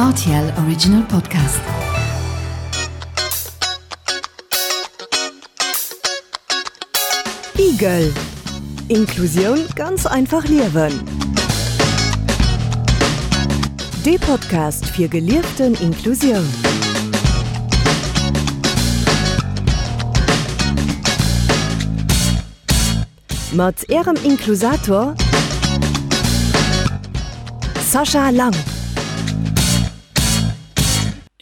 Rtl Original Podcast. Igel Inklusioun ganz einfach liewen. Dee Podcast fir gelieften Inklusioun. Mat Ärem Inklusator Sascha Lang.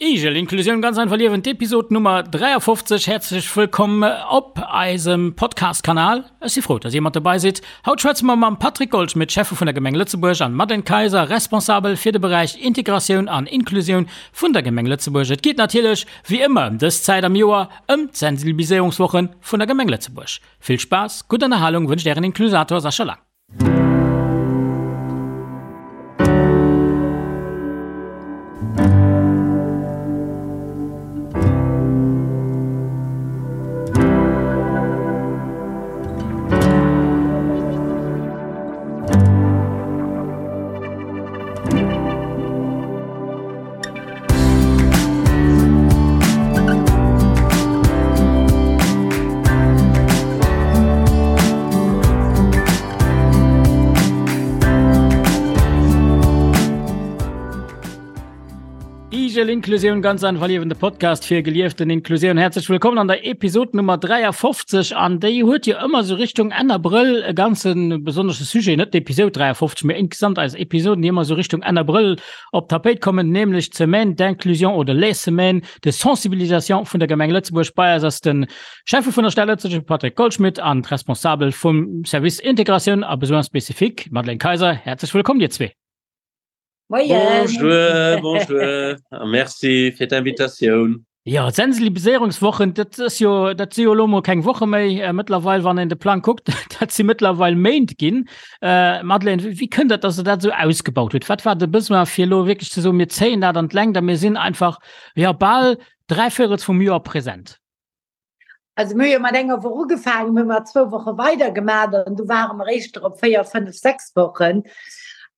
Igel, Inklusioun ganz einfach liewen, d'Episod Nummer 53. Häerzlech wëllkomm op eisem Podcast-Kanal. Ech si frou, dass dir mat dobei sidd. Haut schwätze mer mam Patrick Goldschmidt, Schäffe vun der Gemeng Lëtzebuerg, an Madeleine Kayser, Responsabel fir de Beräich Integratioun an Inklusioun vun der Gemeng Lëtzebuerg. Et geet natierlech, wéi ëmmer ëm dës Zäit am Joer, ëm d'Sensibiliséierungswoche vun der Gemeng Lëtzebuerg. Vill Spaass, gutt Ënnerhalung wënscht Ären Inklusator Sascha Lang. Igel Inklusioun ganz einfach liewen, de Podcast fir gelieften Inklusioun. Herzlech wëllkommen an der Episode Nummer 53 an déi huet jo ëmmer sou Richtung Enn Abrëll e ganze besonnesche Sujet, net d'Episode 53, mee insgesamt eis Episoden, déi ëmmer sou Richtung Enn Abrëll op d'Tapéit kommen, nämlech d'Semaine d'inclusion oder les Semaines de sensibilisation vun der Gemeng Lëtzebuerg. Bei eis ass de Schäffe vun der Stad Lëtzebuerg, Patrick Goldschmidt, an d'Responsabel vum Service Integratioun a Besoins spécifiques, Madeleine Kayser. Häerzlech wëllkomm, dir zwee. Moien. Bonjour, bonjour a merci fir d'Invitatioun. Jo, d'Sensibiliséierungswochen, dat ass jo, dat si jo elo mol keng Woche méi mëttlerweil, wann een de Plang kuckt, dat si mëttlerweil Méint ginn. Madeleine, wéi kënnt dat, datt Der dat esou ausgebaut hutt? Wat war de Besoin, fir elo wierklech ze soen, mir zéien dat an d'Längt a mir sinn einfach, jo, bal dräivéierels vum Joer present? Also mir hu jo mat enger Woch ugefaangen, mir hu mat zwou Woche weidergemaach an du ware mer éischter op 4, 5, 6 Wochen.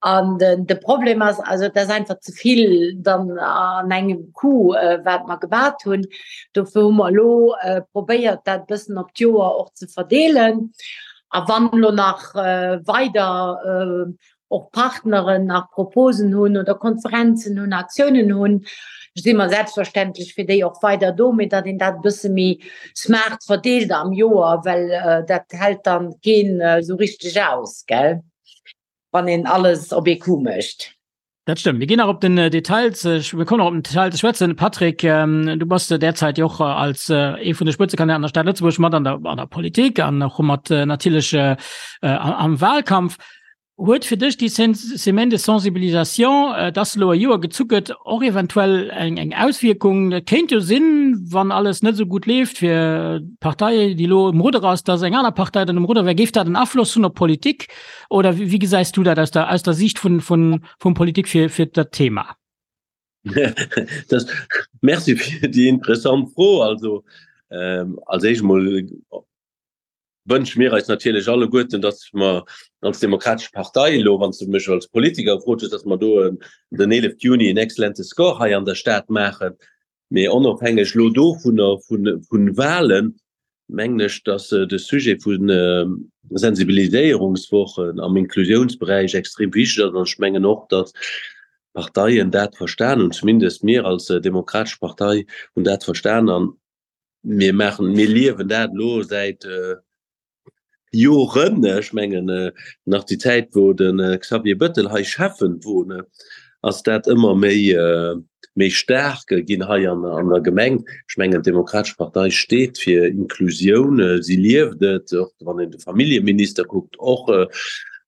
An den, de Problem ass, also et ass einfach ze vill dann an engem Coup, äh, wat mer gemat hunn. Dofir hu mer elo äh, probéiert, dat bëssen op d'Joer och ze verdeelen. A wann elo nach äh, weider äh, och Partneren nach Proposen hunn oder Konferenzen hunn, Aktiounen hunn, si mer selbstverständlech fir déi och weider do, mee datt een dat e bësse méi smart verdeelt am Joer, well dat hält dann keen esou richteg aus, gell, wann een alles op ee Coup mécht. Dat stëmmt. Mir ginn nach op den Detail ze, mir kommen nach op den Detail ze schwätzen. Patrick, du bass derzäit jo och als ee vun de Spëtzekandidaten an der Stad Lëtzebuerg mat an der, an der Politik an och mat natierlech am Wahlkampf. Huet fir dech déi Semaine de sensibilisation, dass elo e Joer gezu gëtt, och eventuell eng eng Auswierkung? Et kéint jo sinn, wann alles net esou gutt leeft fir d'Partei, déi elo um Rudder ass, dass eng aner Partei dann um Rudder wär. Géif dat en Afloss hunn op d'Politik oder wéi gesäis du dat aus der aus der Siicht vun vun vum Politik fir fir dat Thema? Das, merci fir déi interessant Fro. Also als éischt emol wënsche mir eis natierlech alleguerten, datt mer als Demokratesch Partei elo, wann s de mech als Politiker gefrot hues, datt mer do den 11 Juni en exzellente Score hei an der Stad maachen. Mee onofhängeg elo dovunner, vu Wahlen, mengen ech, datt de Sujet vu Sensibiliséierungswochen am Inklusiounsberäich extrem wichteg ass. An ech mengen och, datt d'Parteien dat verstan hunn, zumindest mir als Demokratesch Partei hunn dat verstan. An mir maachen, mir liewen dat elo säit Joren. Ech mengen nach déi Zäit, wou de Xavier Bettel hei Schäffen wor, ass dat ëmmer méi méi staark ginn hei an an der Gemeng. Ech mengen d'Demokratesch Partei steet fir Inklusioun, si lieft et, och wann een de Familljeminister kuckt, och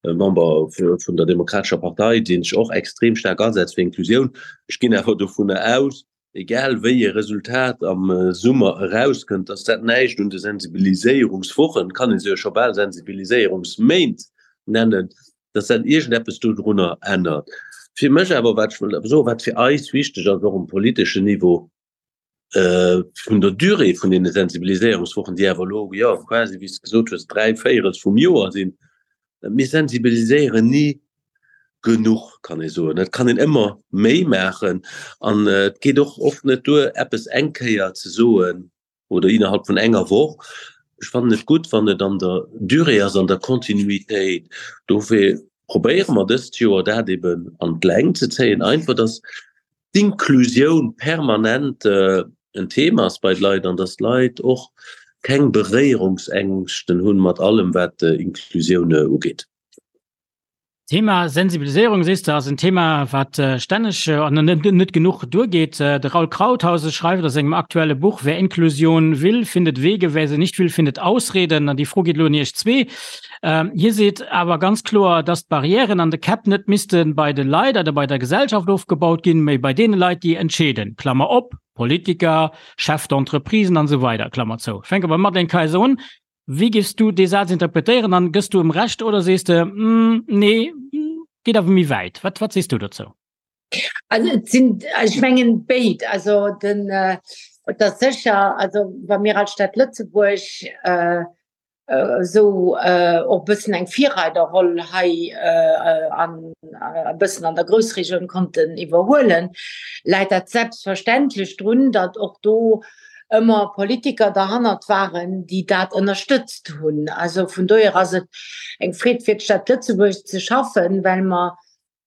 Member vun der Demokratescher Partei, dee sech och extrem staark asetzt fir Inklusioun. Ech ginn awer dovunner aus, egal wéi e Resultat am Summer erauskënnt, dass dat näischt un de Sensibiliséierungswochen, kann ee se jo scho bal Sensibiliséierungsméint nennen, dass dat iergendeppes dodrunner ännert. Fir mech awer, wat ech wëll awer soen, wat fir eis wichteg ass, och um politeschen Niveau, vun der Durée vun deene Sensibiliséierungswochen, déi awer elo, jo, quasi, wéi s de gesot hues, dräivéierels vum Joer sinn, mir sensibiliséieren ni. genuch, kann ee soen. Et kann een ëmmer méi maachen an et geet och oft net duer, eppes eng Kéier ze soen oder innerhalb vun enger Woch. Ech fannen et gutt, wann et an der Durée ass, an der Kontinuitéit. Dofir probéiere mer dëst Joer dat eben an d'Längt ze zéien, einfach dass d'Inklusioun permanent en Thema ass bei de Leit an dass d'Leit och keng Beréierungsängschten hunn mat allem wat Inklusioun ugeet. Thema Sensibiliséierung, sees de, ass en Thema, wat stänneg an net genuch duergeet. De Raul Krauthause schreift a sengem aktuelle Buch Wer Inklusion will, findet Wege, wer sie nicht will, findet Ausreden. An déi Fro geet elo un Iech zwee. Hie seet awer ganz kloer, dass d'Barrièren an de Käpp net misste bei de Leit oder bei der Gesellschaft ofgebaut ginn, mee bei deene Leit, déi entscheeden, Klammer op, Politiker, Chefs d'entreprisen an esou weider, Klammer zou. Ech fänke beim Madeleine Kayser un. Wéi géifs du dee Saz interpretéieren an gëss du em Recht oder sees de, nee, geet awer méi wäit? Wat, wat sees du dozou? Also et sinn, ech mengen béid. Also den, et ass sécher, also wa mir als Stad Lëtzebuerg esou och e bëssen eng Virreiderroll hei an e bëssen an der Groussregioun konnten iwwerhuelen, läit dat selbstverständlech drun, datt och do ëmmer Politiker derhannert waren, déi dat ënnerstëtzt hunn. Also vun dohier ass et eng Freed fir d'Stad Lëtzebuerg ze schaffen, well mer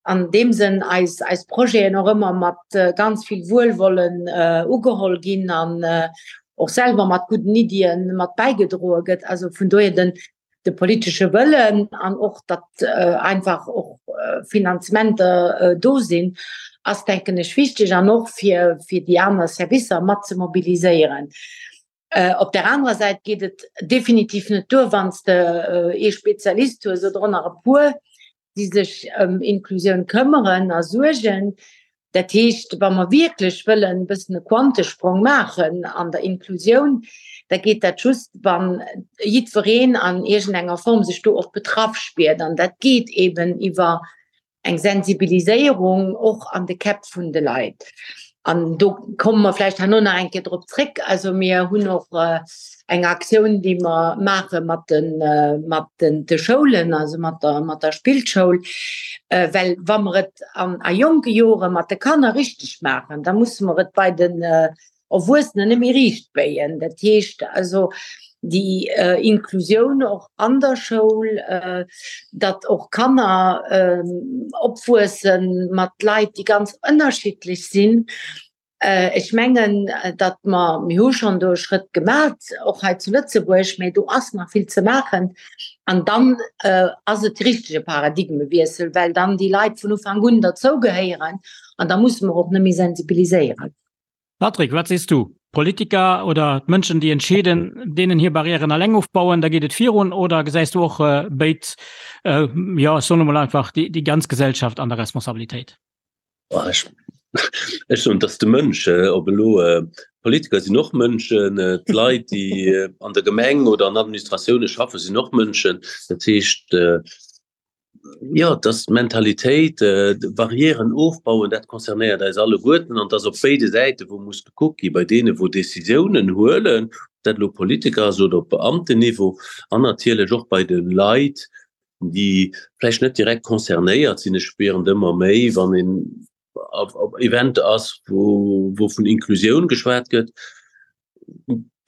an deem Sënn eis, eis Projeten och ëmmer mat ganz vill Wuelwollen ugeholl ginn an och selwer mat gudden Iddien mat bäigedroe gëtt. Also vun dohier den, de politesche Wëllen an och datt einfach och Finanzementer do sinn, ass denken ech wichteg an och fir fir déi aner Servicer mat ze mobiliséieren. Op der anerer Säit geet et definitiv net duer, wann s de ee Spezialist hues oder och nach e puer, déi sech ëm Inklusioun këmmeren a suergen. Dat heescht, wa mer wierklech wëllen e bëssen e Quantesprong maachen an der Inklusioun, da geet dat just, wa jiddwereen an iergendenger Form sech do och betraff spiert. An dat geet eeben iwwer eng Sensibiliséierung och an de Käpp vun de Leit. An do komme mer vläicht herno nach eng Kéier drop zréck. Also mir hunn och eng Aktioun, déi mer maache mat de mat den de Schoulen, also mat der mat der Spillschoul, well wa mer et an a jonke Jore mat de Kanner richteg maachen, da musse mer et bei den Erwuessenen net méi riicht béien. Dat heescht also déi Inklusioun och an der Schoul, datt och Kanner opwuesse mat Leit, déi ganz ënnerschiddlech sinn. Ech mengen, datt mer, mir hu schonn do e Schrëtt gemat, och hei zu Lëtzebuerg, mä do ass nach vill ze maachen. An dann ass et de richtege Paradigmewiessel, well dann déi Leit vun Ufank un derzougehéieren an da musse mer och net méi sensibiliséieren. Patrick, wat sees du? Politiker oder d'Mënschen, déi entscheeden, deenen hir Barrièren alleng ofbauen, da geet et virun? Oder gesäis du och béid, jo, ech soen emol einfach, déi ganz Gesellschaft an der Responsabilitéit? Ech soen, et ass de Mënsch. Ob elo Politiker sinn och Mënschen, d'Leit, déi an der Gemeng oder an Administratioune schaffen, sinn och Mënschen. Dat heescht, Jo, dass d'Mentalitéit, Barrièren ofbauen, dat concernéiert eis alleguerten an dass op béide Säite wou muss gekuckt gi bei deene wou Décisiounen huelen, ob dat elo Politiker ass oder op Beamtenniveau, an natierlech och bei de Leit, déi vläicht net direkt concernéiert sinn. Ech spieren et ëmmer méi, wann een op Eventer ass, wou vun Inklusioun geschwat gëtt,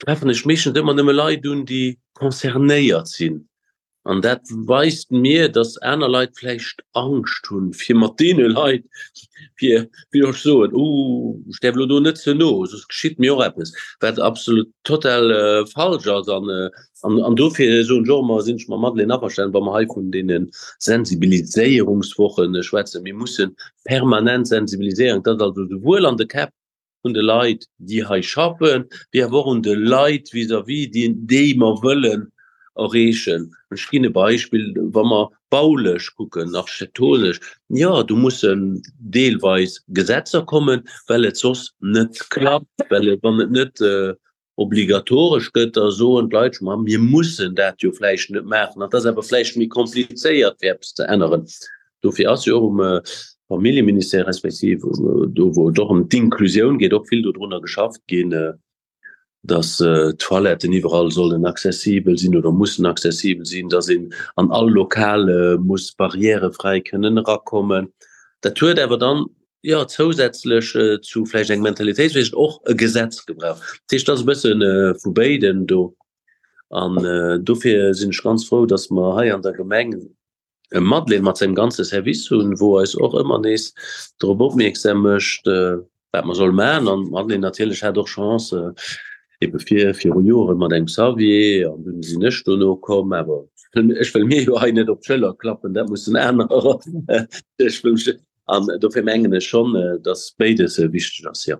treffen ech meeschtens ëmmer nëmme Leit un, déi concernéiert sinn. An dat weist mir, dass aner Leit vläicht Angscht hunn, fir mat deene Leit, fir, wéi soll ech soen, uh, ech däerf elo do net ze no, soss geschitt mir och eppes, wat absolut total falsch ass. An, an, an dofir soen ech och ëmmer, sinn ech mam Madeleine averstanen, wa mer hei vun deene Sensibiliséierungswoche schwätzen, mir musse permanent sensibiliséieren, dass also souwuel an de Käpp un de Leit, déi hei schaffen, wéi awer och un de Leit vis-à-vis, déi, déi mer wëllen erreechen. Ech ginn e Beispill, Wa mer baulech kucken, architektonesch, jo, do mussen deelweis Gesetzer kommen, well et soss net klappt, well et, wann et net obligatoresch gëtt, da soen d'Leit scho, ma mir mussen dat jo vläicht net maachen. Dat ass awer vläicht méi komplizéiert, fir eppes ze änneren. Dofir ass jo och um Familljeministère respektiv do, wou et och ëm d'Inklusioun geet, och vill dodrunner geschafft ginn. Dass d'Toiletten iwwerall sollen accessibel sinn oder mussen accessibel sinn, dass een an all Lokal muss barrièrefräi kënnen erakommen. Dat huet awer dann, jo, zousätzlech zu vläicht engem Mentalitéitswiessel och e Gesetz gebraucht. Dat heescht, et ass e bësse vu béidem do. An dofir sinn ech ganz frou, dass mer hei an der Gemeng e Madeleine mat sengem ganze Service hunn, wou eis och ëmmer nees drop opmierksam mécht, wat mer solle maachen. An d'Madeleine natierlech hat och Chance, ebe vir viru Jore mat engem Xavier, an dunn sinn ech dono komm. Awer ech wëll mir jo hei net op d'Schëller klappen, dat mussen anerer. Ech wëll mech An dofir mengen ech schonn, datt béides wichteg ass, jo.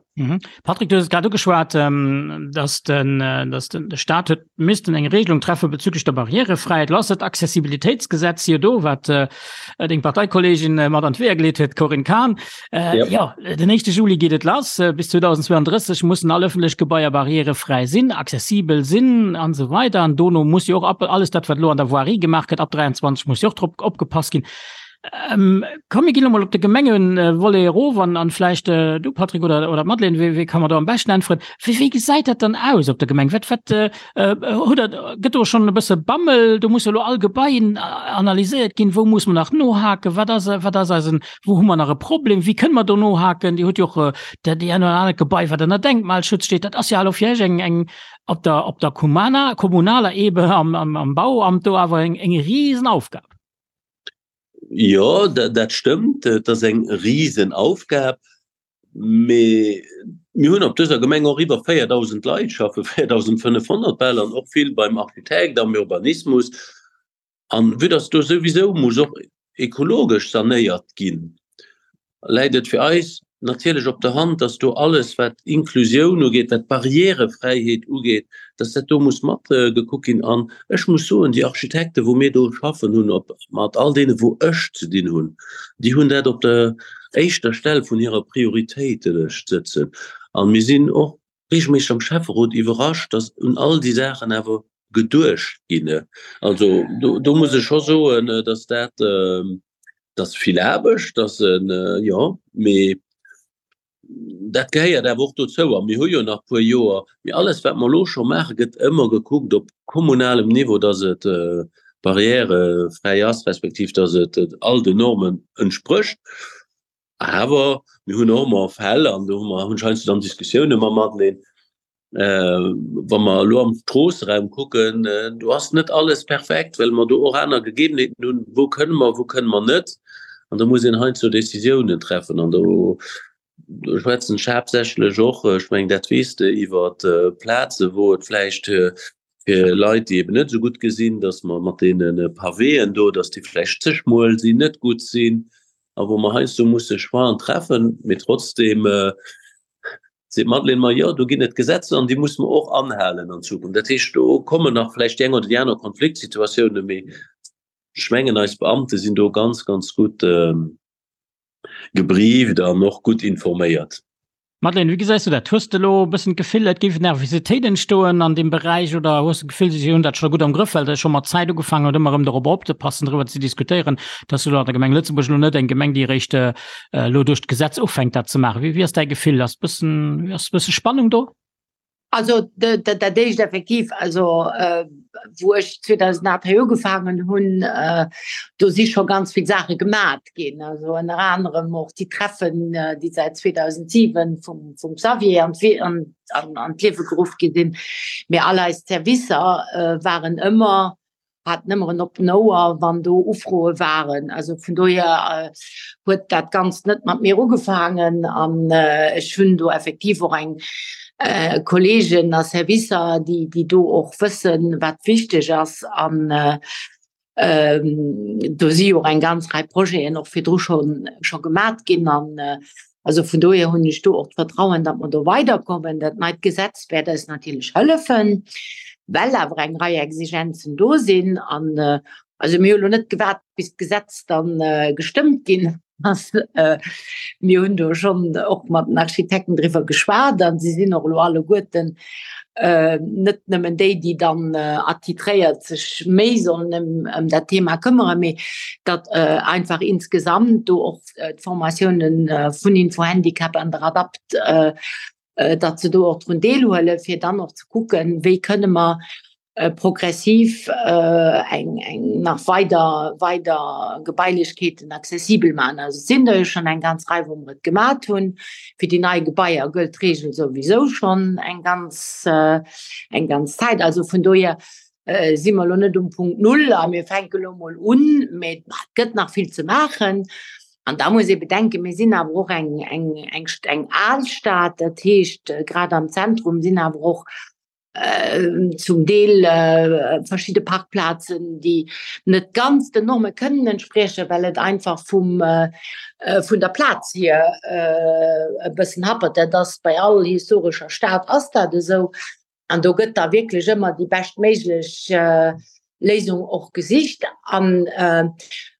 Patrick, du hues et grad ugeschwat, datt den, datt den, de Staat huet missten eng Regelung treffe bezüglech der Barrièrefräiheet. Lo ass dat Accessibilitéitsgesetz jo do, wat deng Parteikolleegin mat an d'Weeër geleet huet, d'Corinne Cahen. Jo, den éischte Juli geet et lass. Bis 2032 mussen all ëffentlech Gebaier barrièrefräi sinn, accessibel sinn an esou weider. An dono muss jo och alles dat, wat elo an der Voirie gemaach gëtt, ab 23 muss jo och drop opgepasst ginn. Ähm, komm, mir ginn emol op de Gemengevolet erof an, an vläicht äh, du Patrick oder, oder Madeleine, wéi, wéi kann man do am beschten äntweren? Wéi, wéi gesäit dat dann aus op der Gemeng? Wat, wat, äh, äh, hutt der, gëtt do schon e bësse Bammel? Do muss jo lo all Gebaien analyséiert ginn. Wou muss man nach nohaken? Wat ass, wat ass eisen, wou hu mer nach e Problem? Wéi kënne mer do nohaken? Dir hutt jo och äh, dat déi eng oder anert Gebai, wat ënner Denkmalschutz steet. Dat ass jo elo fir Iech eng, eng op der, op der Kumana, kommunaler Ebene am, am, am Bauamt do awer eng, eng Riesenaufgab. Jo, dat stëmmt, et ass eng Risenaufgab. Mee mir hunn op dëser Gemeng och iwwer 4.000 Leit schaffen, 4.500 bal, an och vill beim Architekt, am Urbanismus. An vue dass do souwisou muss och ekologesch sanéiert ginn, läit et fir eis natierlech op der Hand, dass do alles, wat Inklusioun ugeet, wat Barrièrefräiheet ugeet, dass dat do muss mat gekuckt ginn. An ech muss soen, déi Architekten, wou mir do schaffen hunn, op mat all deene wou ech ze dinn hunn, déi hunn dat op der éischter Stell vun hirer Prioritéitelëscht sëtzen. A mir sinn och regelméisseg am Schäfferot iwwerrascht, dass un all déi Saachen awer geduecht ginn. Also do, do muss ech scho soen, dass dat, Dat ass vill Aarbecht, dat ass en, jo, mee dat gehéiert awer och dozou. A mir hu jo nach e puer Joer. Mee alles, wat mer elo scho maachen, gëtt ëmmer gekuckt op kommunalem Niveau, dass et barrièrefräi ass, respektiv dass et all den Normen entsprécht. Awer mir hunn och ëmmer Fäll, an do hu mer hunn ech heiansdo dann Diskussioune mam Madeleine, wa mer elo am Stroosseraum kucken, do ass net alles perfekt, well mer do och aner Gegebenheeten hunn, wou kënne mer, wou kënne mer net. An do muss een heiansdo Decisiounen treffen. An do schwätzen ech haaptsächlech och, ech mengen dat weess de, iwwer Plaze wou et vläicht fir Leit, déi eben net esou gutt gesinn, datt mer mat deene Pavéen do, datt déi vläicht ze schmuel sinn, net gutt sinn a wou mer heiansdo musse Choixen treffen. Mee trotzdem seet d'Madeleine mer, jo, do ginn et Gesetzer an déi musse mer och anhalen an Zukunft. Dat heescht, do kommen nach vläicht déi eng oder déi aner Konfliktsituatiounen, mee ech mengen, eis Beamte sinn do ganz, ganz gutt gebrieft an och gutt informéiert. Madeleine, wéi gesäis du dat? Hues de elo e bëssen d'Gefill, et géif Nervositéit entstoen an deem Beräich oder hues de d'Gefill, si hunn dat scho gutt am Grëff, well Der scho mat Zäit ugefaangen hutt, ëmmer erëm dorop opzepassen, driwwer ze diskutéieren, dass elo an der Gemeng Lëtzebuerg elo net eng Gemeng, déi eréischt elo duerch d'Gesetz ufänkt, dat ze maachen? Wéi ass däi Gefill? Ass bëssen, ass bësse Spannung do? Also dat éischt effektiv, also wou ech 2008 hei ugefaangen hunn, do si scho ganz vill Saache gemat ginn. Also ënner anerem och déi Treffen, déi säit 2007 vum vum Xavier an an an d'Liewe geruff gi sinn. Mee all eis Servicer waren ëmmer haten ëmmer en oppen Ouer, wann do Ufroe waren. Also vun dohier huet dat Ganzt net mat mir ugefaangen an ech hunn do effektiv och eng Kolleegen a Servicer, déi, déi do och wëssen, wat wichteg ass. An do si jo och eng ganz Rei Projeten och virdru scho scho gemat ginn. An also vun dohier hunn ech do och d'Vertrauen, datt mer do weiderkommen. Dat neit Gesetz wäert eis natierlech hëllefen, well awer eng Rei Exigenzen do sinn. An also mir hu lo net gewaart, bis d'Gesetz dann gestëmmt ginn ass. Mir hunn do schonn och mat den Architekten driwwer geschwat a si sinn och elo alleguerten net nëmmen déi, déi dann attitréiert sech méi sollen ëm ëm dat Thema këmmere, mee datt einfach insgesamt do och d'Formatiounen vun Infohandicap an der Adapt. datt se do och drun deelhuelen, fir dann och ze kucken, wéi kënne mer progressiv eng eng nach weider weider Gebailechkeeten accessibel maachen. Also et sinn der jo schonn eng ganz Rei, wou mer et gemat hunn. Fir déi nei Gebaier gëllt d'Reegel souwisou schonn eng ganz eng ganz Zäit. Also vun dohier si mer elo net um Punkt Null a mir fänke elo mol un, mee et gëtt nach vill ze maachen. An da muss ee bedenken, mir sinn awer och eng eng eng eng al Stad, dat heescht grad am Zentrum sinn awer och zum Deel verschidde Parkplazen, déi net ganz den Norme kënnen entspriechen, well et einfach vum vun der Plaz hier e bëssen happert. Dat ass bei all historescher Stad ass dat esou. An do gëtt da wierklech ëmmer déi beschtméiglech Léisung och gesicht. An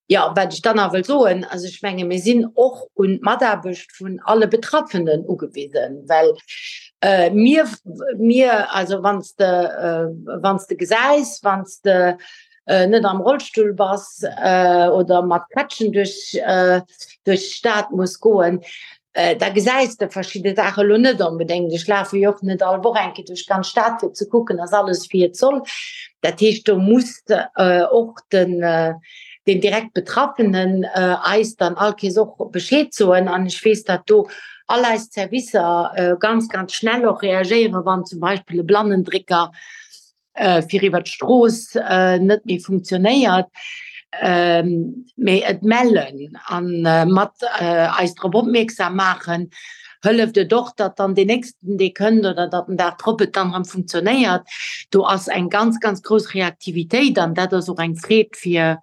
jo, wat ech dann nach wëll soen, also ech menge mir sinn och un d'Mataarbecht vun alle Betraffenen ugewisen, well mir, mir, also wann s de, wann s de gesäis, wann s de net am Rollstull bass oder mat Krätschen duerch duerch d'Stad muss goen, da gesäis de verschidde Saache lo net onbedéngt. Ech lafe jo och net all Woch eng Kéier duerch d'ganz Stad fir ze kucken, ass alles wéi et soll. Dat heescht, do muss och den den direkt Betraffenen eis dann all Kees och Bescheed soen. An ech weess, datt do all eis Servicer ganz, ganz schnell och reagéieren, wann zum Beispill e Blannendrécker fir iwwer d'Strooss net méi funktionéiert, mee et mellen an mat eis drop opmierksam maachen, hëlleft et och, datt dann deen nächsten, dee kënnt oder datt den Dag drop et dann erëm funktionéiert. Do ass eng ganz, ganz grouss Reaktivitéit an dat ass och eng Freed fir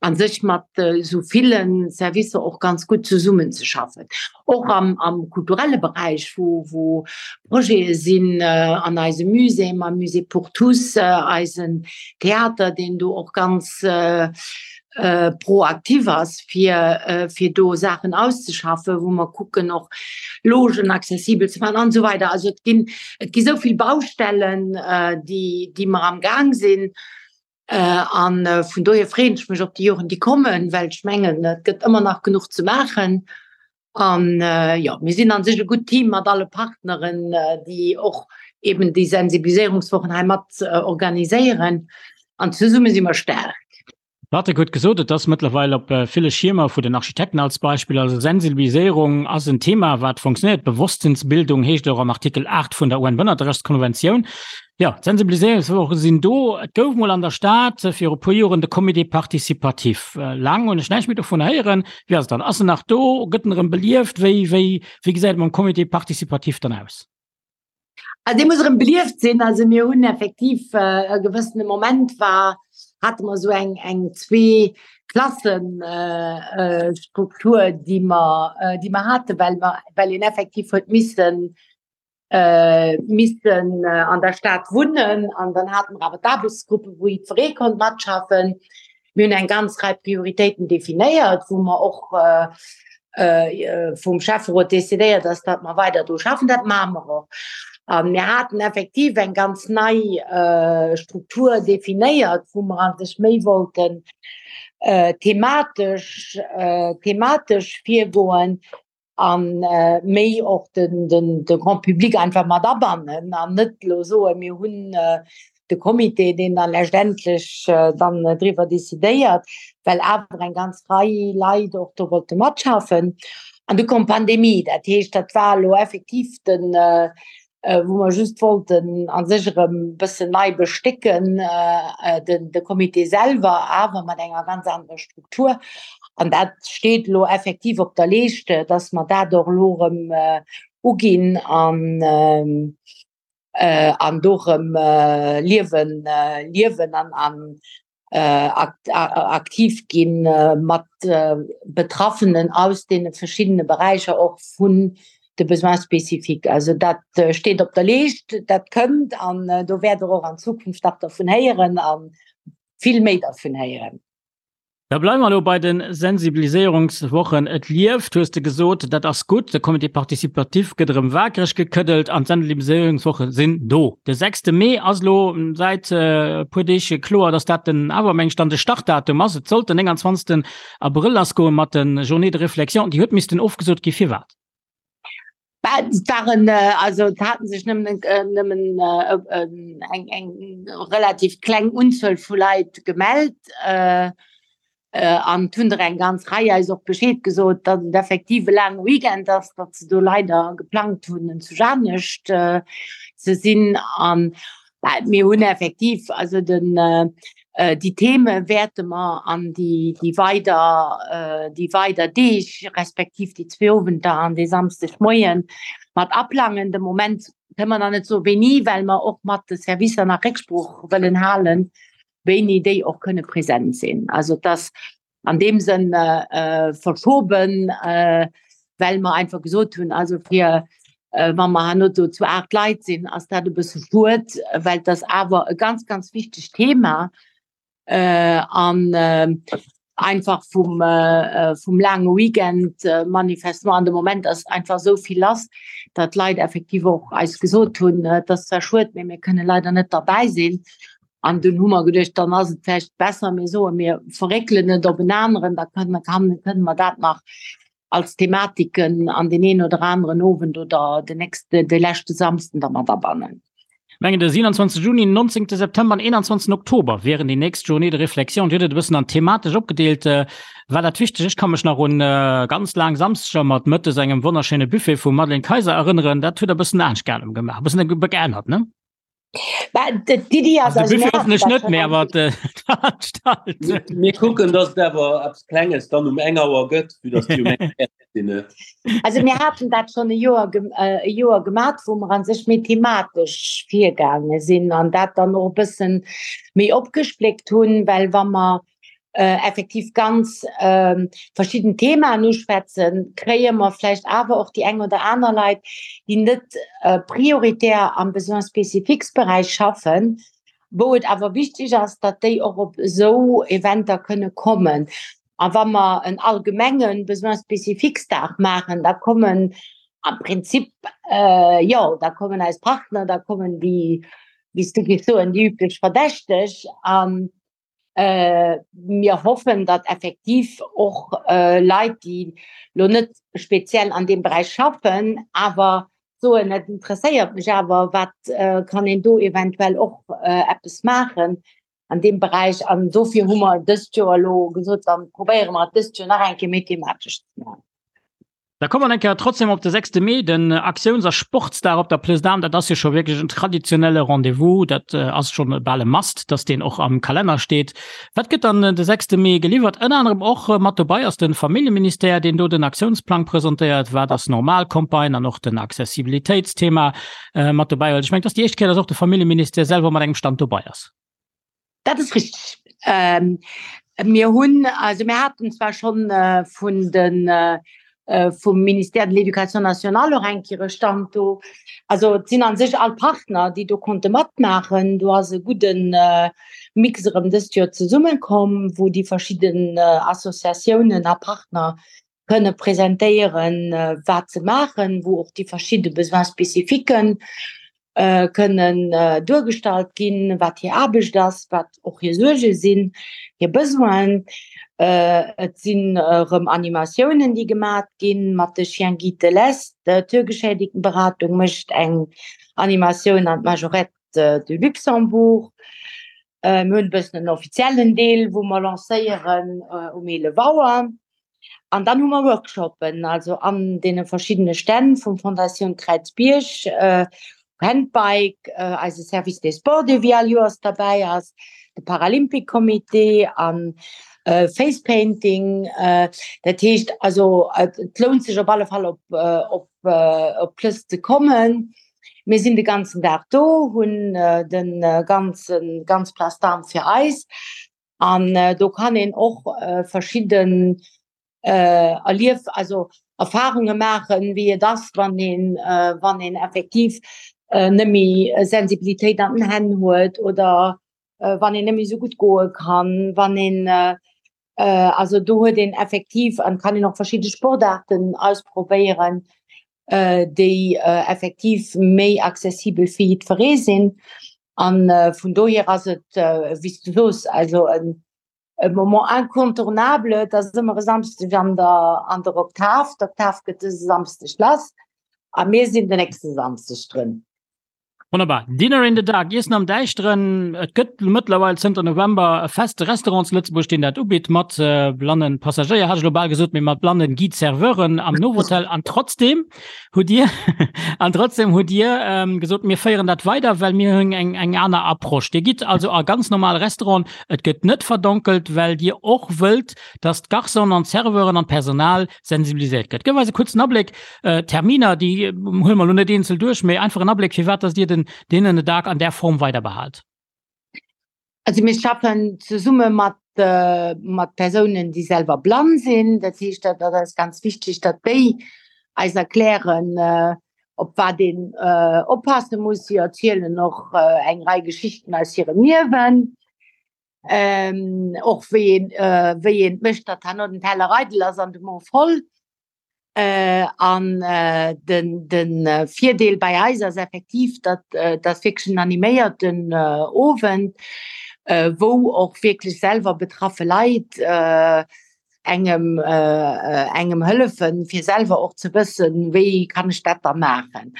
a sech mat esou ville Servicer och ganz gutt zesummenzeschaffen. Och am, am kulturelle Beräich, wou, wou Projete sinn an eisem Musée, mam Musée pour tous, eisen Theater, deen do och ganz proaktiv ass, fir, fir do Saachen auszeschaffen, wou mer kucken och Logen accessibel ze maachen an esou weider. Also et ginn, et gi esou vill Baustellen, déi, déi mer am Gaang sinn. An vun dohier freeën ech mech op déi Joren, déi kommen, well ech mengen, et gëtt ëmmer nach genuch ze maachen. An jo, mir sinn an sech e gutt Team mat alle Partneren, déi och eben déi Sensibiliséierungswochen hei mat organiséieren. An zesumme si mer staark. Patrick huet gesot, et ass mëttlerweil op ville Schiermer vu den Architekten als Beispill. Also Sensibiliséierung ass en Thema, wat funktionéiert. Bewosstsinnsbildung heescht et och am Artikel 8 vun der UN-Bënnerterechtskonventioun. Jo, d'Sensibiliséierungswoche sinn do. Et gouf mol an der Stad viru puer Joren de Comité participatif. Laang hunn ech näischt méi dovun héieren. Wéi ass et dann? Ass en nach do? Gëtt en erëm belieft? Wéi, wéi, wéi gesäit et mam Comité participatif dann aus? Also dee muss erëm belieft sinn. Also mir hunn effektiv e gewëssene Moment war, hate mer esou eng, eng Zwee-Klassen-Struktur, déi mer, déi mer haten, well mer, well een effektiv huet missen missen an der Stad wunnen an dann haten mer awer d'Aarbechtsgruppe wou jiddweree konnt matschaffen. Mir hunn eng ganz Rei Prioritéiten definéiert, wou mer och vum Schäfferot decidéiert ass, datt mer weider dru schaffen. Dat maache mer och. A mir haten effektiv eng ganz nei Struktur definéiert, wou mer a sech méi wollten thematesch thematesch virgoen, an méi och den, den, de Grand Public einfach mat abannen an net elo soen, mir hunn de Comité, deen dann letztendlech dann driwwer decidéiert, well awer eng ganz Rei Leit och do wollte matschaffen. An du koum d'Pandemie, dat heescht, dat war elo effektiv den, wou mer just wollten a sech erëm e bëssen nei bestécken, den de Comité selwer, awer mat enger ganz anerer Struktur. An dat steet elo effektiv op der Leescht, dass mer dat och elo erëm uginn an an do erëm Liewen liewen an an aktiv ginn mat Betraffenen aus deene verschiddene Beräicher och vun de Besoins spécifiques. Also dat steet op der Leescht, dat kënnt an do wäert Der och an Zukunft nach dervun héieren a vill méi dervun héieren. Da bleiwe mer elo bei de Sensibiliséierungswochen. Et lieft, hues de gesot, dat ass gutt. De Comité participatif gëtt erëm waakreg gekëddelt an d'Sensibiliséierungswoche sinn do. De sechste Mee ass elo säit e puer Deeg kloer, datt dat den awer meng ech dann de Startdatum ass. Et sollt den 29. Abrëll lassgoe mat de Journées de réflexion. Déi huet missten ofgesot gi. Firwat? Et waren also et haten sech nëmmen nëmmen eng eng relativ kleng Unzuel vu Leit gemellt an et hunn der eng ganz Rei eis och Bescheed gesot, datt et effektiv e laange Weekend ass, datt se do leider geplangt hunn zu anescht ze sinn. An mir hunn effektiv also den déi Theme wäerte mer an déi déi weider déi weider Deeg respektiv déi zwee Owenter an dee Samschdegmoie mat aplangen. De Moment kënne mer nach net soe wéini, well mer och mat de Servicer nach Récksprooch wëllen halen, wéini déi och kënne present sinn. Also et ass an deem Sënn verschoben, well mer einfach gesot hunn, also fir wa mer herno do zu 8 Leit sinn, ass dat e bësse schued, well et ass awer e ganz, ganz wichtegt Thema an einfach vum, vum laange Weekend manifestement an de Moment ass einfach esou vill lass, datt d'Leit effektiv och eis gesot hunn, et ass zwar schued, mee mir kënne leider net derbäi sinn. An dunn hu mer geduecht, dann ass et vläicht besser, mir soen, mir verréckelen et op en aneren, da kënne kënne mer dat nach als Thematiken an deen een oder aneren Owend oder den nächste, de leschte Samsden da mat abannen. Mengen de 27 Juni, 19 September an 21 Oktober wieren déi nächst Journée de réflexion. Dir hutt et e bëssen an thematesch opgedeelt. War dat wichteg? Ech ka mech nach un ganz laang Samsdeger mat mëttes engem wonnerschéine Buffet vum Madeleine Kayser erënneren. Dat hutt Der e bëssen anescht gemaach, e bëssen geännert, ne? D'Iddi ass also de Buffet hoffentlech net méi, awer d'Veranstaltung. Mir kucken, dass et awer eppes Klenges dann um eng Auer gëtt, vue dass déi um eng fäerdeg sinn. Also mir haten dat schonn e Joer e Joer gemat, wou mer a sech méi thematesch virgaange sinn an dat dann och e bëssen méi opgespléckt hunn, well wa mer effektiv ganz verschidden Themaen uschwätzen, kréie mer vläicht awer och déi eng oder aner Leit, déi net prioritär am Besoins spécifiques Beräich schaffen, wou et awer wichteg ass, datt déi och op esou Eventer kënne kommen. A wa mer en allgemenge Besoins spécifiques Dag maachen, da kommen am Prinzip, jo, da kommen eis Partner, da kommen déi, wéi s du géifs soen, déi üblech Verdächteg. An Mir hoffen, datt effektiv och Leit, déi elo net speziell an deem Beräich schaffen, awer soen, et interesséiert mech awer, wat kann een do eventuell och eppes maachen an deem Beräich. An dofir hu mer dëst Joer elo gesot, da probéiere mer et dëst Joer nach eng Kéier méi thematesch ze maachen. Da komme mer eng Kéier trotzdem op de sechste Mee, den Aktiouns a Sportsdag op der Plëss d'Armes. Dat ass jo scho wierklech en traditionelle Rendez-vous. Dat ass schonn bal e Must, dass deen och am Kalenner steet. Wat gëtt dann de sechste Mee geliwwert? Ënner anerem och mat dobei ass de Familljeministère, deen do den Aktiounsplang presentéiert. Wat ass normal Campagne an och den Accessibilitéitsthema mat dobäi huet. Ech mengen, et ass déi éischt Kéier, dass och de Familljeministère selwer mat engem Stand dobei ass. Dat ass richteg. Mir hunn, also mir haten zwar schonn vun de vum Ministère de l'Éducation nationale och eng Kéier e Stand do. Also et sinn a sech all Partner, déi do konnte matmaachen. Do ass e gudde Mix erëm dëst Joer zesummekomm, wou déi verschidden Associatiounen a Partner kënne presentéieren, wat se maachen, wou och déi verschidde Besoins spécifiques kënnen duergestallt ginn, wat hir Aarbecht ass, wat och hir Suerge sinn, hir Besoinen. Et sinn erëm Animatiounen, déi gemat ginn mat de Chiens guides de l'Est. D'Hörgeschädigtenberatung mécht eng Animatioun an d'Majorette de Luxembourg. Mir hunn e bëssen en offiziellen Deel, wou mer lancéieren um 11 Auer. An dann hu mer Workshoppen, also an deene verschiddene Stänn vum Fondatioun Kräizbierg, Handbike, eise Service des Sports, dee wéi all Joers derbäi ass, de Paralympic Comité a Face Painting. Dat heescht also, et lount sech op alle Fall op op op d'Plëss ze kommen. Mir sinn de ganzen Dag do, hunn de ganzen ganz Place d'Armes fir eis. An do kann een och verschidden Erlief, also Erfarunge maachen, wéi et ass, wann een, wann een effektiv net méi Sensibilitéit an den Hänn huet oder wann een net méi esou gutt goe kann, wann een, also do huet een effektiv an kann een och verschidde Sportaarten ausprobéieren, déi effektiv méi accessibel fir jiddweree sinn. An vun dohier ass et, wéi s du soos, also en Moment incontournable. Et ass ëmmer e Samschdeg an der an der Oktav. D'Oktav gëtt dëse Samschdeg lass. A mir sinn den nächste Samschdeg drun. Wonnerbar. Dinner in the Dark, Iessen am Däischteren. Et gëtt mëttlerweil zënter November e feste Restaurant zu Lëtzebuerg, deen dat ubitt, mat blannen Passagéier, hat ech elo bal gesot, mee mat blannen Guide-Serveuren am Novotel. An trotzdem hutt Dir, an trotzdem hutt Dir gesot, mir féieren dat weider, well mir hunn eng, eng aner Approche. Dir gitt also a ganz normal Restauranten, et gëtt net verdonkelt, well Dir och wëllt, dass d'Garçonen an d'Serveuren an d'Personal sensibiliséiert gëtt. Gëff eis e kuerzen Abléck, Terminer, déi huele mer elo net eenzel duerch, mee einfach en Abléck, firwat dass Dir den Dinner in the Dark an där Form weider behaalt. Also mir schaffen zesumme mat, mat Persounen, déi selwer blann sinn. Dat heescht, dat ass eis ganz wichteg, datt déi eis erklären, op wat een oppasse muss. Si erzielen och eng Rei Geschichten aus hirem Liewen. Och wéi een, wéi een et mécht, datt herno den Teller eidel ass an de Mo voll. An den de Virdeel bei eis ass effektiv, datt dat wierklech en animéierten Owend, wou och wierklech selwer betraffe Leit engem engem hëllefen, fir selwer och ze wëssen, wéi kann ech dat da maachen.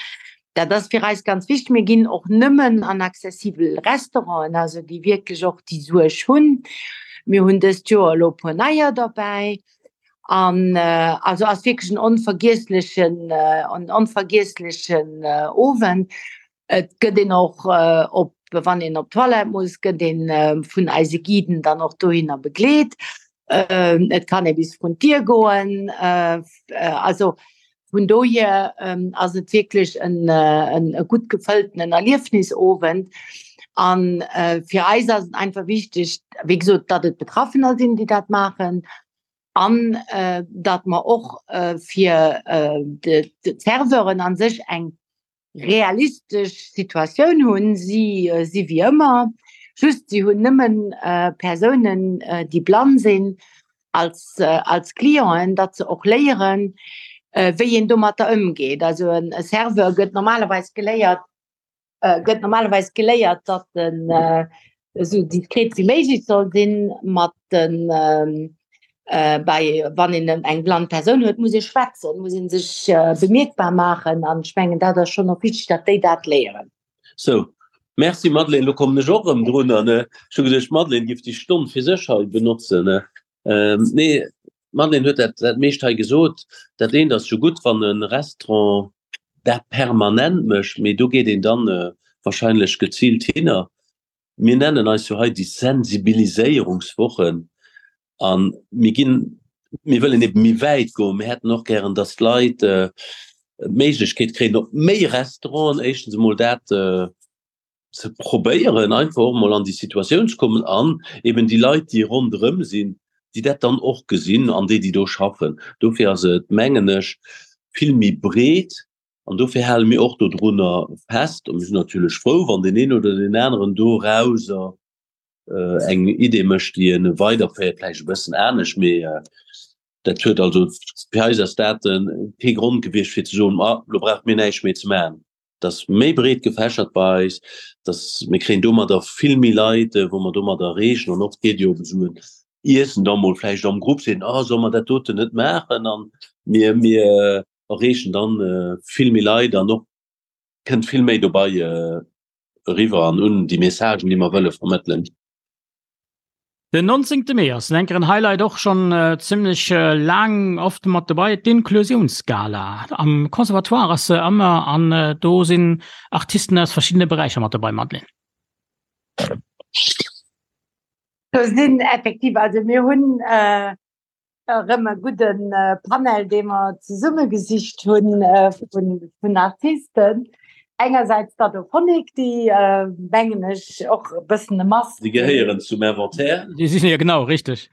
Dat ass fir eis ganz wichteg. Mir ginn och nëmmen an accessibel Restauranten, also déi wierklech och déi Suerg hunn. Mir hunn dëst Joer elo e puer neier derbäi. An also ass wierklech en onvergiesslechen, en onvergiesslechen Owend. Et gëtt een och op, wann een op d'Toilette muss, gëtt een vun eise Guiden dann och dohinner begleet. Et kann ee bis vrun d'Dier goen. Also vun dohier ass et wierklech en e gutt gefëlltenen Erliefnisowend. An fir eis ass et einfach wichteg, wéi gesot, datt et Betraffener sinn, déi dat maachen an datt mer och fir d'Serveuren a sech eng realistesch Situatioun hunn. Si si wéi ëmmer, just si hunn nëmmen Persounen, déi blann sinn, als, als Clienten, datt se och léieren, wéi een domatter ëmgeet. Also e Serveur gëtt normalerweis geléiert, gëtt normalerweis geléiert, datt en esou diskret wéi méiglech soll sinn mat den bei wann een eng blann Persoun huet, muss ee schwätzen, muss ee sech bemierkbar maachen an ech mengen dat ass schonn och wichteg, datt déi dat léieren. Sou, merci Madeleine, lo kommen ech och erëm drun an ech hu geduecht d'Madeleine giff déi Stonn fir sech hei benotzen. Nee, d'Madeleine huet dat dat meescht hei gesot. Dat eent ass jo gutt, wann e Restaurant dat permanent mécht, mee do geet een dann wahrscheinlech geziilt hinner. Mir nennen eis jo hei déi Sensibiliséierungswochen a mir ginn, mir wëllen ebe méi wäit goen. Mir hätten och gären, datt d'Leit d'Méiglechkeet kréien, op méi Restauranten éischtens emol dat ze probéieren, einfach och emol an déi Situatioun ze kommen an eben déi Leit, déi ronderëm sinn, déi dat dann och gesinn an déi, déi do schaffen. Dofir ass et, mengen ech, vill méi breet an dofir hale mir och dodrunner fest. A mir sinn natierlech frou, wann deen een oder deen aneren dorauser eng Idee mécht, déi e weiderféiert, vläicht e bëssen anescht, mee dat huet also, fir eis ass dat kee Grond gewiescht, fir ze soen, Ma lo brauche mir näischt méi ze maachen. Et ass méi breet gefächert bei eis, dass mir kréien domadder vill méi Leit, wou mer domadder erreechen. An oft geet jo op esou en Iessen da mol vläicht am Grupp, seet een, Ah, solle mer dat doten net maachen? An mir, mir erreechen dann vill méi Leit an och kënnt vill méi dobei eriwwer an un déi Messagen, déi mer wëlle vermëttelen. Den 19. Mee ass en enkeren Highlight och schonn zimmlech laang oft mat dobei, d'Inklusiounsgala. Am Conservatoire ass se ëmmer an do sinn Artisten aus verschiddene Beräicher mat dobei, Madeleine. Do sinn effektiv, also mir hunn erëm e gudde Panel, dee mer zesummegesicht hunn vun Artisten. Engersäits d'Adophonic, déi, mengen ech, och e bëssen e Must Déi gehéieren zum Inventaire. Déi sinn, jo genau, richteg.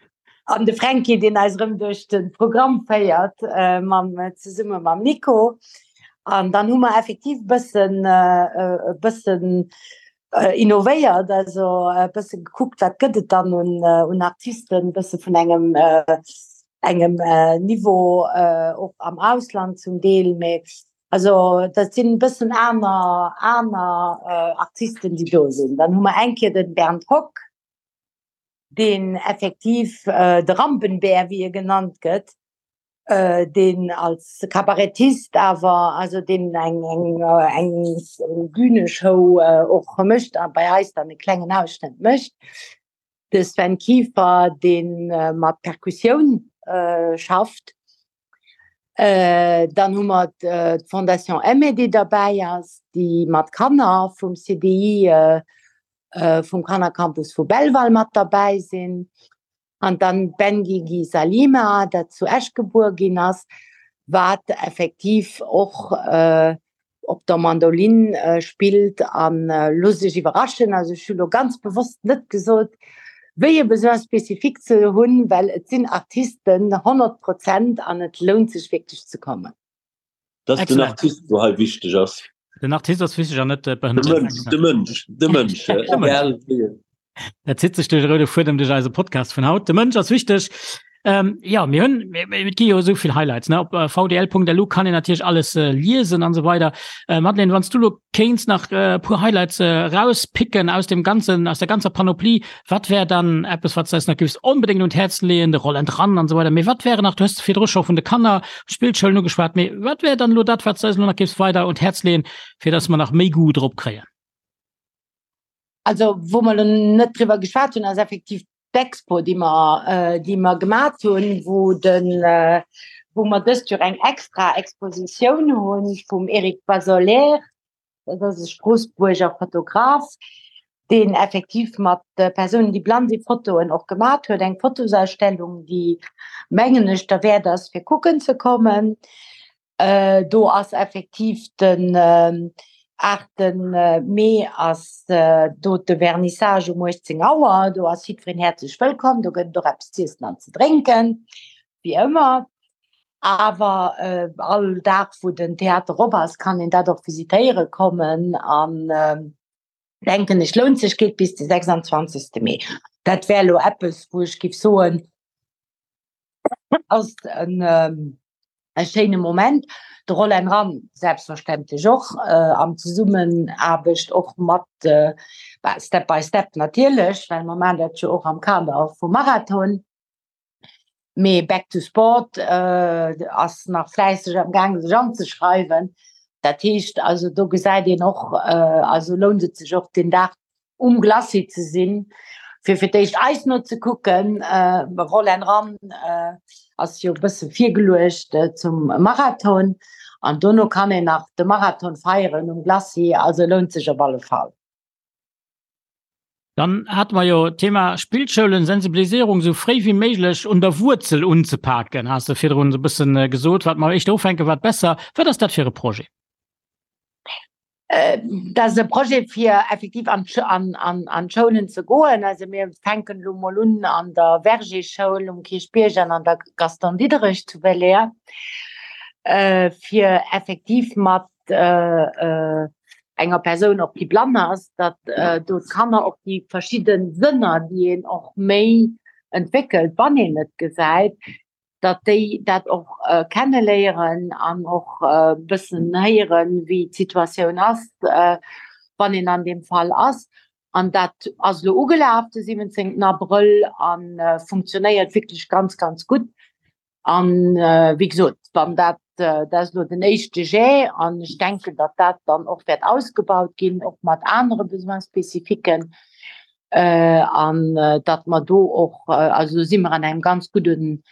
An de Fränki, deen eis erëm duerch de Programm féiert, mam, zesumme mam Nico. An dann hu mer effektiv e bëssen, e bëssen innovéiert, also e bësse gekuckt, wat gëtt et dann un, un Artisten, e bësse vun engem, engem Niveau och am Ausland zum Deel, mee also dat sinn e bëssen aner, aner Artisten, déi do sinn. Dann hu mer eng Kéier de Bernd Hock, deen effektiv de Rampenbär, wéi e genannt gëtt. Deen als Kabarettist awer, also deen eng eng eng Bühneshow och mécht a bei eis dann e klengen Ausschnëtt mécht. De Sven Kieffer, dee mat Perkussioun schafft. Dann hu mer d'Fondation Aimée, déi derbäi ass, déi mat Kanner vum CDI, vum Kannercampus vu Belval mat derbäi sinn. An dann d'Benguigui Salima, dat zu Esch gebuer ginn ass, wat effektiv och op der Mandolin spillt. A looss iech iwwerraschen, also ech hu lo ganz bewosst net gesot, wéi e Besoin spécifique se hunn, well et sinn Artisten 100 Prozent an et lount sech wierklech ze kommen. Dat ass den Artist, wou hei wichteg ass. Den Artist ass wichteg an net de Mënsch. De Mënsch, de Mënsch, egal wéi en. Dat zitt sech duerch de roude Fuedem duerch eise Podcast vun haut. De Mënsch ass wichteg. Ähm, ja, mir hunn, et gi jo esou vill Highlights, ne? Op vdl.lu kann een natierlech alles liesen an esou weider. Madeleine, wann s du lo kéints nach e puer Highlights erauspicken aus dem ganzen, aus der ganzer Panoplie, Wat wär dann eppes, wat s de eis nach géifs onbedéngt un d'Häerz leeën, de Roland Ran an esou weider, mee wat wären nach, du hues virdru scho vun de Kanner, Spillschoulen ugeschwat, mee wat wär dann elo dat, wat s de eis elo nach géifs weider un d'Häerz leeën, fir dass mer nach méi Goût drop kréien? Also wou mer elo net driwwer geschwat hunn, ass effektiv d'Expo, déi mer, déi mer gemat hunn, wou de, wou mer dëst Joer eng extra Expositioun hu vum Eric Basoler, Dat ass e Stroossbuerger Fotograf, deen effektiv mat Persounen, déi blann sinn, Fotoen och gemat huet. Eng Fotosausstellung, déi, mengen ech, derwäert ass, fir kucken ze kommen. Do ass effektiv den 8 Mee ass do de Vernissage um 18 Auer. Do ass jiddwereen häerzlech wëllkomm. Do gëtt et och eppes z'iessen an ze drénken, wéi ëmmer. Awer all Dag wou den Theater op ass, kann een dat och visitéiere kommen an denken ech lount sech, geet bis de 26 Mee. Dat wär elo eppes wou ech giff soen ass en e schéine Moment. De Roll and Run selbstverständlech och an Zesummenaarbecht och mat Step by Step natierlech, well mer maachen dat jo och am Kader vum Marathon. Mee Back to Sport ass nach fläisseg am gaange sech anzeschreiwen. Dat heescht also do gesäit een och, also lount et sech och deen Dag um Glacis ze sinn, fir fir d'éischt eis no ze kucken. Roll and Run ass jo e bësse virgeluecht zum Marathon an dono kann een nach de Marathon feieren um Glacis. Also lount sech op alle Fall. Dann hate mer jo d'Thema Spillschoulen, Sensibilisierung esou fréi wéi méiglech un der Wuerzel unzepaken, has de virdrun esou e bëssen gesot. Wat mer éischter ufänken, wat besser. Wat ass dat fir e Projet? Dat ass e Projet, fir effektiv an d'Schoulen ze goen. Also mir fänken elo mol un an der Verger-Schoul um Kierchbierg an an der Gaston Diderich zu Belair, fir effektiv mat enger Persoun och déi blann ass, datt do d'Kanner och déi verschidde Sënner, déi een och méi entwéckelt, wann een net gesäit, datt déi dat och kenneléieren an och e bëssen héieren, wéi d'Situatioun ass, wann een an deem Fall ass. An dat ass elo ugelaf de 17 Abrëll a funktionéiert wierklech ganz, ganz gutt. An wéi gesot, wann dat, dat ass elo den éischte Jet an ech denken, datt dat dann och wäert ausgebaut ginn, och mat anere Besoins spécifiquen, an datt mer do och, also do si mer an engem ganz gudden,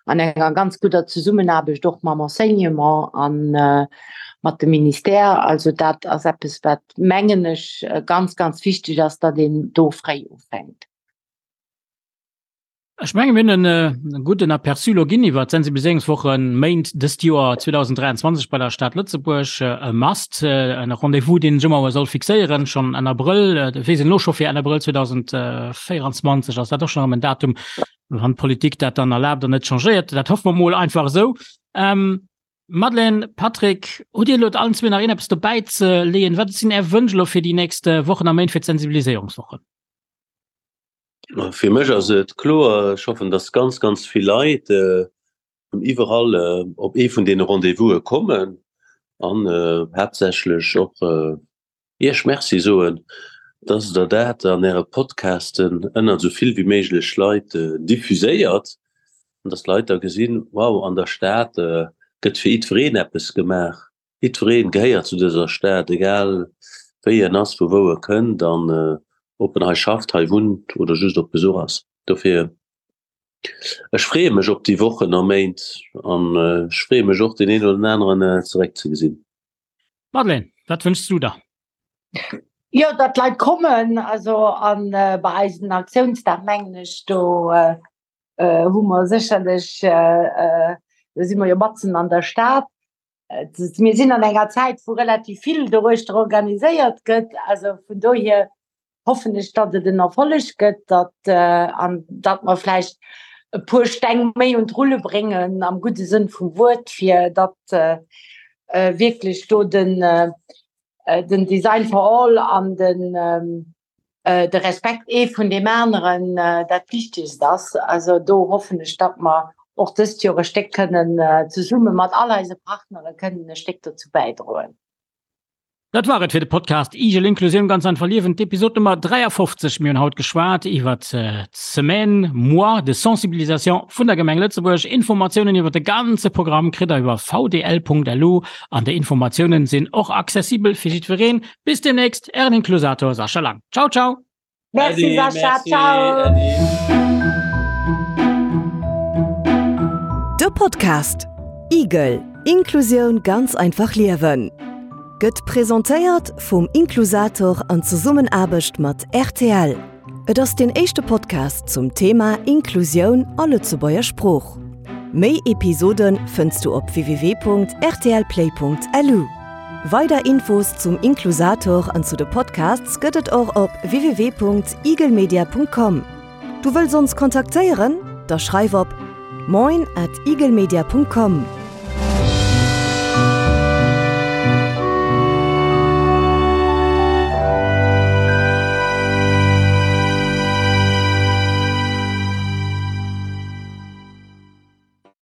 an enger ganz gudder Zesummenaarbecht och mam Enseignement a mat dem Ministère. Also dat ass eppes, wat, mengen ech, ganz, ganz wichteg ass, datt een do fréi ufänkt. Ech menge mir hunn en gudden Aperçu elo ginn iwwer d'Sensibiliséierungswoche Méint dëst Joer 2023 bei der Stad Lëtzebuerg. E Must, e Rendez-vous, deen sech ëmmer soll fixéieren, schonn Enn Abrëll. Et weess een elo scho fir Enn Abrëll 2024 ass dat och schonn erëm en Datum, wann d'Politik dat dann erlaabt an net changéiert. Dat hoffe mer mol einfach esou. Madeleine, Patrick, hutt Dir elo allen zwee nach iergendeppes dobäi ze leeën? Wat sinn Är Wënsch elo fir déi nächst Wochen a Méint fir d'Sensibiliséierungswochen? Fir mech ass et kloer, ech hoffen, dass ganz, ganz vill Leit vun iwwerall op ee vun deene Rendez-vouse kommen an haaptsächlech och Iech Merci soen, dass Der dat an Äre Podcasten ënnert esou vill wéi méiglech Leit diffuséiert. An dass d'Leit da gesinn, wow, an der Stad gëtt fir jiddwereen eppes gemaach. Jiddwereen gehéiert zu dëser Stad, egal wéi en ass, vu wou e kënnt an ob en hei schafft, hei wunnt oder just op Besuch ass. Dofir, ech freeë mech op déi Wochen a Méint an ech freeë mech och, deen een oder den aneren zeréckzegesinn. Madeleine, wat wënschs du der? Jo, datt d'Leit kommen, also an bei eisen Aktiounsdag mengen ech, do hu mer sécherlech, do si mer jo matzen an der Stad. Mir sinn an enger Zäit, wou relativ vill doruechter organiséiert gëtt. Also vun dohier hoffen ech, datt et en Erfolleg gëtt, datt an datt mer vläicht e puer Steng méi un d'Rulle bréngen am gudde Sënn vum Wuert, fir datt wierklech do den den Design for all an den de Respekt ee vun deem aneren dat Wichtegst ass. Also do hoffen ech, datt mer och dëst Joer e Stéck kënnen zesumme mat all eise Partnere kënnen e Stéck dozou bäidroen. Dat war et fir de Podcast Igel Inklusioun ganz einfach liewen, d'Episod Nummer 53. Mir hunn haut geschwat iwwer d'Semaine, Mois de sensibilisation vun der Gemeng Lëtzebuerg. Informatiounen iwwer de ganze Programm kritt der iwwer vdl.lu an déi Informatiounen sinn och accessibel fir jiddwereen. Bis demnächst, Ären Inklusator Sascha Lang. Ciao, ciao! Merci Sascha, ciao! De Podcast Igel, Inklusioun ganz einfach liewen gëtt presentéiert vum Inklusator an Zesummenaarbecht mat rtl. Et ass deen éischte Podcast zum Thema Inklusioun a Lëtzebuerger Sprooch. Méi Episode fënns du op www.rtlplay.lu. Weider Infos zum Inklusator an zu de Podcasts gëtt et och op www.igelmedia.com. Du wëlls ons kontaktéieren? Da schreif op moin at igelmedia.com.